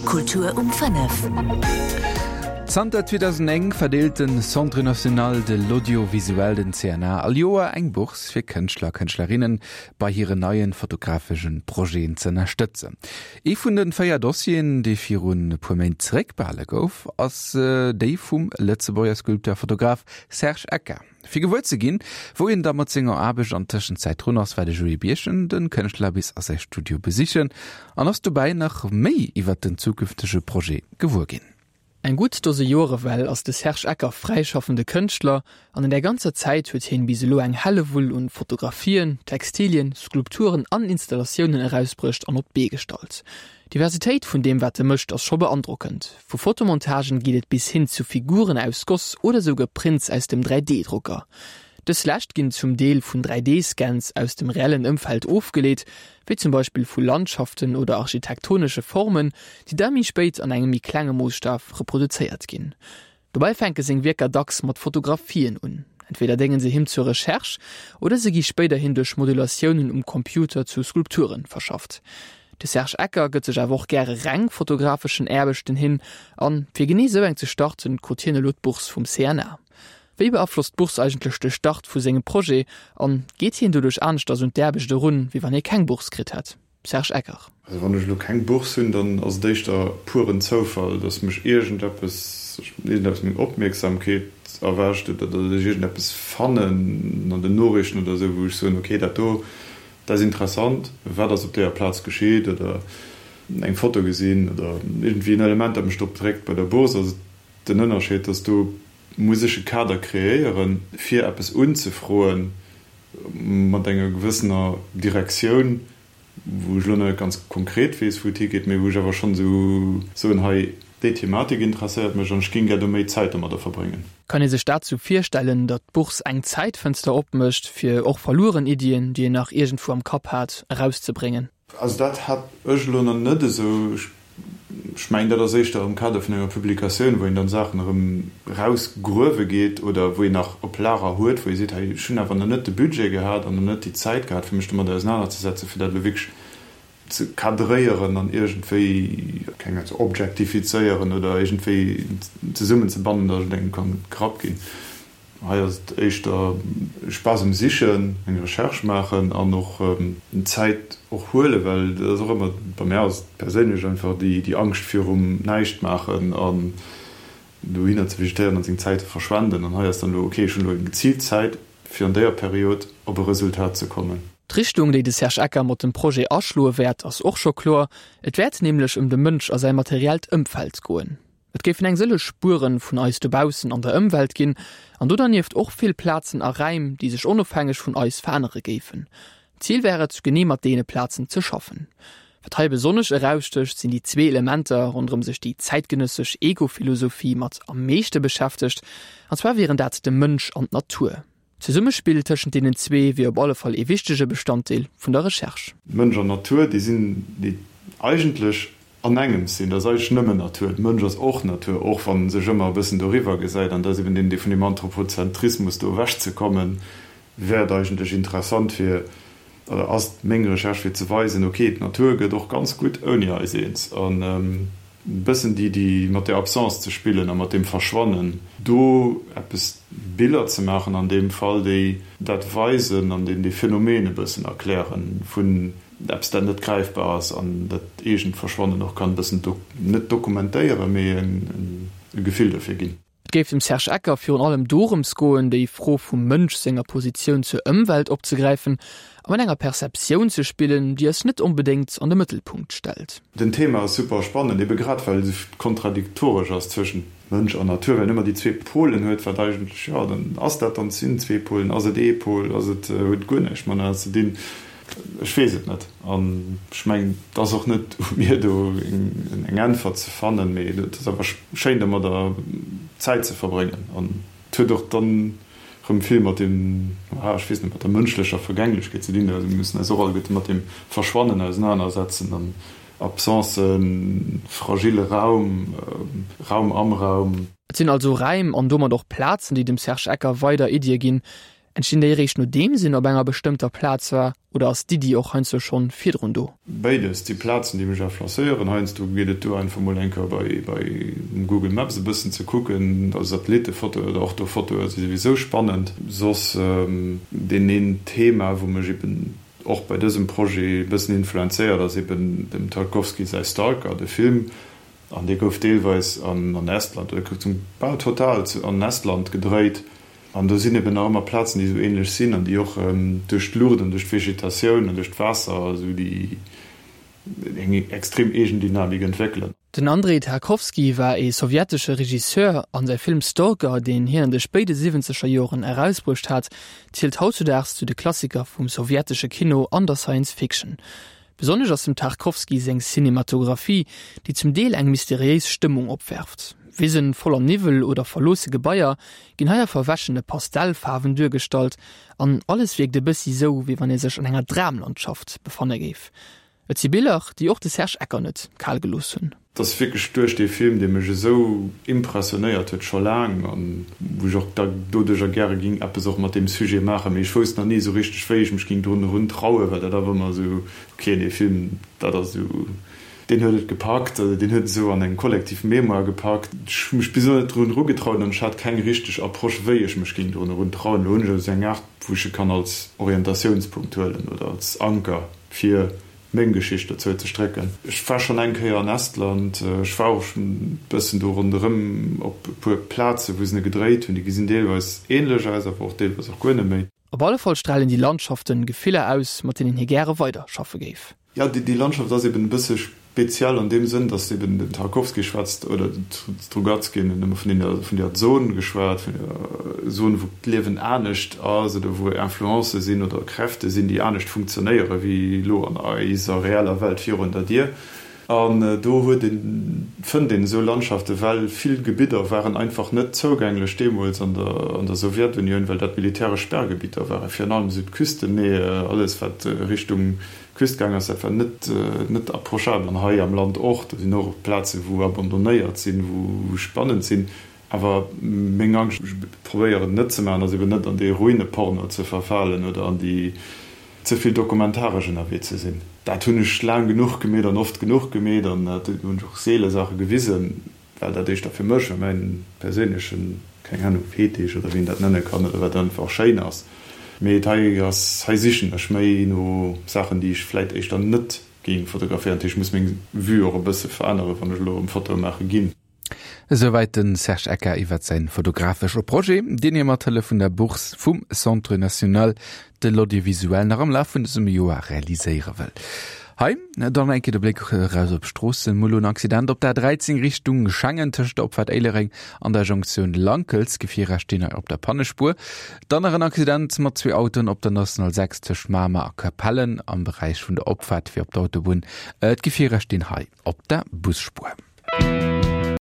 Kultur um 5. Zanter 2009 verdeelt den Centre National de l'Audiovisuel, den CNA, all Joer eng Bourse fir Kënschtler a Kënschtlerinnen bei hiren neien fotografeschen Projeten ze ënnerstëtzen. Ee vun den 4 Dossieren, dee virun e puer Méint zeréckbehale gouf, ass déi vum Lëtzebuerger Sculpteur a Fotograf Serge Ecker. Fir gewuer ze ginn, wou een da mat senger Aarbecht an Tëschenzäit drun ass, war de Joé Birchen de Kënschtler bis a säi Studio besichen an ass dobäi nach méi iwwert den zukünftege Projet gewuer ginn. Eng gutt Dose Joer ewell ass de Serge Ecker fräischaffende Kënschtler an an där ganzer Zäit huet hien bis elo eng Hellewull un Fotografien, Textilien, Skulpturen an Installatiounen erausbruecht an op d'Bee gestallt. D'Diversitéit vun deem wat e mécht ass scho beandrockend. Vu Fotomontagen geet et bis hin zu Figuren aus Goss oder souguer Prints aus dem 3D-Drucker. Dës lescht ginn zum Deel vun 3D-Scans aus dem reellen Ëmfeld ofgeleet, wéi zum Beispill vu Landschaften oder architektonesche Formen, déi da méi spéit an engem méi klenge Moosstaf reproduzéiert ginn. Dobäi fänke seng Wierker dacks mat Fotografien un. Entweder dénge se him zur Recherche oder se gi spéiderhin duerch Modulatiounen um Computer zu Skulpture verschafft. De Serge Ecker gëtt sech awer och gäre reng fotografeschen Aarbechten hin an fir genee sou eng ze starten, krut hien elo d'Bourse vum CNA. Wéi beaflosst d'Bourse eigentlech de Start vu sengem Projet an geet hien doduerch aneschters un d'Aarbecht erun, wéi wann hie keng Bourse kritt hätt? Serge Ecker. Also wann ech elo keng Bourse hunn, dann ass et éischter puren Zoufall, dass mech iergendeppes, iergendeppes meng Opmierksamkeet erwächt oder dass ech iergendeppes fannen an den Noriichten oder esou, wou ech soen, okay, dat do, dat ass interessant, wat ass op deeër Plaz geschitt oder eng Foto gesinn oder iergendwéi en Element, dat mech drop dréckt. Bei der Bourse ass et den Ënnerscheed, dass do muss ech e Kader kreéieren, fir eppes unzefroen mat enger gewëssener Direktioun, wou ech elo nach net ganz konkret weess, wou et higeet, mee wou ech awer schonn esou soen, hei, déi Thematik interesséiert mech an ech géing gär do méi Zäit domadder verbréngen. Kann ee sech dat sou virstellen, datt d'Bourse eng Zäitfënster opmécht, fir och verlueren Iddien, déi een nach iergendwou am Kapp hat, erauszebréngen? Also dat hat ech elo nach net esou. Ech mengen, dat ass éischter am Kader vun enger Publikatioun, wou een dann Saachen erëm erausgruewe geet oder wou een nach op Lager huet, wou ee seet, hei, ech hunn awer nach net de Budget gehat an nach net déi Zäit gehat, fir mech domadder ausenanerzesetzen, fir dat elo wierklech ze cadréieren an iergendwéi, keng Ahnung, ze objektifizéieren oder iergendwéi zesummenzebannen, datt et engem kann gerappt ginn. Hei ass et éischter Spaass um Sichen, eng Recherche maachen an och Zäit och huelen, well dat ass och ëmmer, bei mär ass et perséinlech einfach déi Angscht virum Näischtmaachen an dohinner ze vegetéieren an seng Zäit ze verschwenden. An hei ass dann elo, ok, ech hunn elo eng geziilt Zäit fir an déier Period op e Resultat ze kommen. D'Richtung, déi de Serge Ecker mat dem Projet aschloe wäert, ass och scho kloer. Et wäert nämlech ëm de Mënsch a säi materiellt Ëmfeld goen. Et géifen eng sëlleg Spueren vun eis dobaussen an der Ëmwelt ginn, an do dernieft och vill Plazen a Räim, déi sech onofhängeg vun eis verännere géifen. D'Zil wär et, genee mat deene Plazen ze schaffen. Wat hei besonnesch erausstécht, sinn déi zwee Elementer, ronderëm sech déi zäitgenëssesch Ego-Philosophie mat am meeschte beschäftegt, an zwar wieren dat de Mënsch an d'Natur. D'Zesummespill tëschent deenen zwee wier op alle Fall ee wichtege Bestanddeel vun der Recherche. Mënsch an Natur, déi sinn, déi eigentlech an engems sinn. Dat ass eigentlech nëmmen Natur. De Mënsch ass och Natur, och wann en sech ëmmer e bëssen doriwwer gesäit. An dat ass eben deen, dee vun deem Anthropozentrismus do ewechzekommen, wär et eigentlech interessant fir, oder ass meng Recherche fir ze weisen, ok, d'Natur gëtt och ganz gutt ouni eis eens. An e bëssen déi, déi mat där Absence ze spillen a mat deem Verschwannen, do eppes Biller ze maachen an deem Fall, déi dat weisen an déi dee Phänomen e bëssen erklären vun eppes, dat net gräifbar ass an dat eegent Verschwannen och kann e bëssen net dokumentéieren, mee e Gefill dofir ginn. Et géif dem Serge Ecker virun allem dorëms goen, déi Fro vum Mënsch senger Positioun zur Ëmwelt opzegräifen a mat enger Perceptioun ze spillen, déi eis net onbedéngt an de Mëttelpunkt stellt. Den Thema ass super spannend, ebe grad well et esou kontradiktoresch ass zwëschent Mënsch an Natur, well en ëmmer déi zwee Polen huet, wat eigentlech, jo, dann ass dat dann, sinn zwee Polen, ass et ee Pol, ass et, huet et guer näischt matenee ze dinn? Ech weess et net an ech mengen, et ass och net u mir do eng Äntwert ze fannen, mee et ass einfach schéin domadder Zäit ze verbréngen an et huet och dann erëm vill mat deem, ah ech weess net, mat der mënschlecher Vergänglechkeet ze dinn. Also mir mussen eis och alleguerte mat deem Verschwannen ausenanersetzen an Absencen, fragile Raum, Raum am Raum. Et sinn also Räim an domat och Plazen, déi dem Serge Ecker weider Iddie ginn. Entstinn déi eréischt nodeems een op enger bestëmmter Plaz war oder ass d'Iddi och heiansdo schonn virdrun do? Béides, déi Plazen déi mech influencéieren. Heiansdo geet et duer einfach mol eng Kéier bei bei Google Maps e bëssen ze kucken, also Satellittefotoe oder Orthofotoe si souwisou spannend. Soss deen een Thema wou mech eben och bei dësem Projet e bëssen influenzéiert ass eben dem Tarkovsky säi Stalker, de Film. An dee gouf deelweis an Estland, oder gouf zum bal total an Estland gedréit. An do sinn eben nach ëmmer Plazen, déi esou ähnlech sinn an déi och duerch d'Luucht an duerch d'Vegetatioun an duerch d'Waasser esou déi eng extrem eegen Dynamik entwéckelen. Den Andrei Tarkowski war ee sowjetesche Regisseur an säi Film Stalker, deen hien an de spéide siwwenzeger Joren erausbruecht hat, zielt hautzudaags zu de Klassiker vum sowjetesche Kino an der Science Fiction. Besonnesch ass dem Tarkowski seng Cinematographie, déi zum Deel eng mysteriéis Stëmmung opwerft. Wisen voller Niwwel oder verloosse Gebaier ginn hei a verwäschene Pastellfaarwen duergestallt an alles wierkt e bëssi sou, wéi wann ee sech an enger Dramlandschaft befanne géif. Et si Biller, déi och de Serge Ecker net kal gelooss hunn. Et ass wierklech duerch dee Film, dee mech esou impressionéiert huet, scho laang, an wou ech och da doduercher gäre ging eppes och mat deem Sujet maachen, mee ech wousst nach ni esou richteg, wéi ech mech ging drun erun trauen, well dat awer ëmmer esou, ok, dee Film, dat ass esou, deen huet et gepackt, also deen huet et esou an eng kollektiv Mémoire gepackt. Ech hu mech bis elo net drun erugetraut an ech hat keng richteg Approche, wéi ech mech ging drun erun trauen. Elo hunn ech esou eng Aart, wou ech e kann als Orientatiounspunkt huelen oder als Anker fir meng Geschicht dozou ze strécken. Ech war schonn eng Kéier an Estland, ech war och schonn e bëssen do ronderëm op e puer Plazen, wou se e gedréit hunn. Déi gesinn deelweis änlech aus, awer och deelweis och guer net méi. Op alle Fall stralen déi Landschaften Gefiller aus, mat deenen hie gäre weider schaffe géif. Jo, déi Landschaft ass eben e bësse speziell an deem Sënn, datt eben den Tarkowski schwätzt, oder den Strugatsky hunn ëmmer vun deene, vun där Zon geschwat, vun der Zon, wou d'Liewen anescht ass oder wou Influencë sinn oder Kräfte sinn, déi anescht funktionéiere wéi elo an eiser reeller Welt virun der Dier. An do huet een, fënnt een esou Landschaften, well vill Gebidder waren einfach net zougänglech deemools an der, an der Sowjetunioun, well dat militäresch Sperrgebitter waren, virun allem esou d'Küsten, nee, alles wat Richtung Küst gaang ass, dat war net, net approchabel. An hei am Land och, do sinn och Plazen, wou abandonnéiert sinn, wou spannend sinn. Awer meng Angscht, ech probéieren et net ze maachen, ass eben net an dee Ruineporno ze verfalen oder an déi ze vill dokumentaresch ënnerwee ze sinn. Dat hunn ech laang genuch gemeet an oft genuch gemeet an dat hunn ech och seele Saache gewisen. Well dat éischter fir mech a mäin perséinlechen, keng Ahnung, Fetisch oder wéi een dat nenne kann oder wat einfach schéin ass. Mee et hei ass, hei sichen ech méi no Saachen déi ech vläit éischter net géing fotograféieren. Dat heescht, ech muss meng Vue och e bësse veränneren, wann ech elo erëm Fotoe maache ginn. Esouwäit de Serge Ecker iwwert säin fotografesche Projet, deen hie mat Hëllef vun der Bourse vum Centre National de l'Audiovisuel nach am Laf vun dësem Joer realiséiere wëll. Hei dann eng Kéier de Bléck eraus op d'Stroossen. Mol en Accident op der A13 Richtung Schengen tëscht der Opfaart Éilereng an der Jonktioun Lankels. Gefierer stinn hei op der Pannespuer. Dann nach en Accident mat zwee Autoen op der National 6 tëscht Mamer a Capellen am Beräich vun der Opfaart fir op d'Autobunn. D'Gefierer stinn hei op der Busspuer.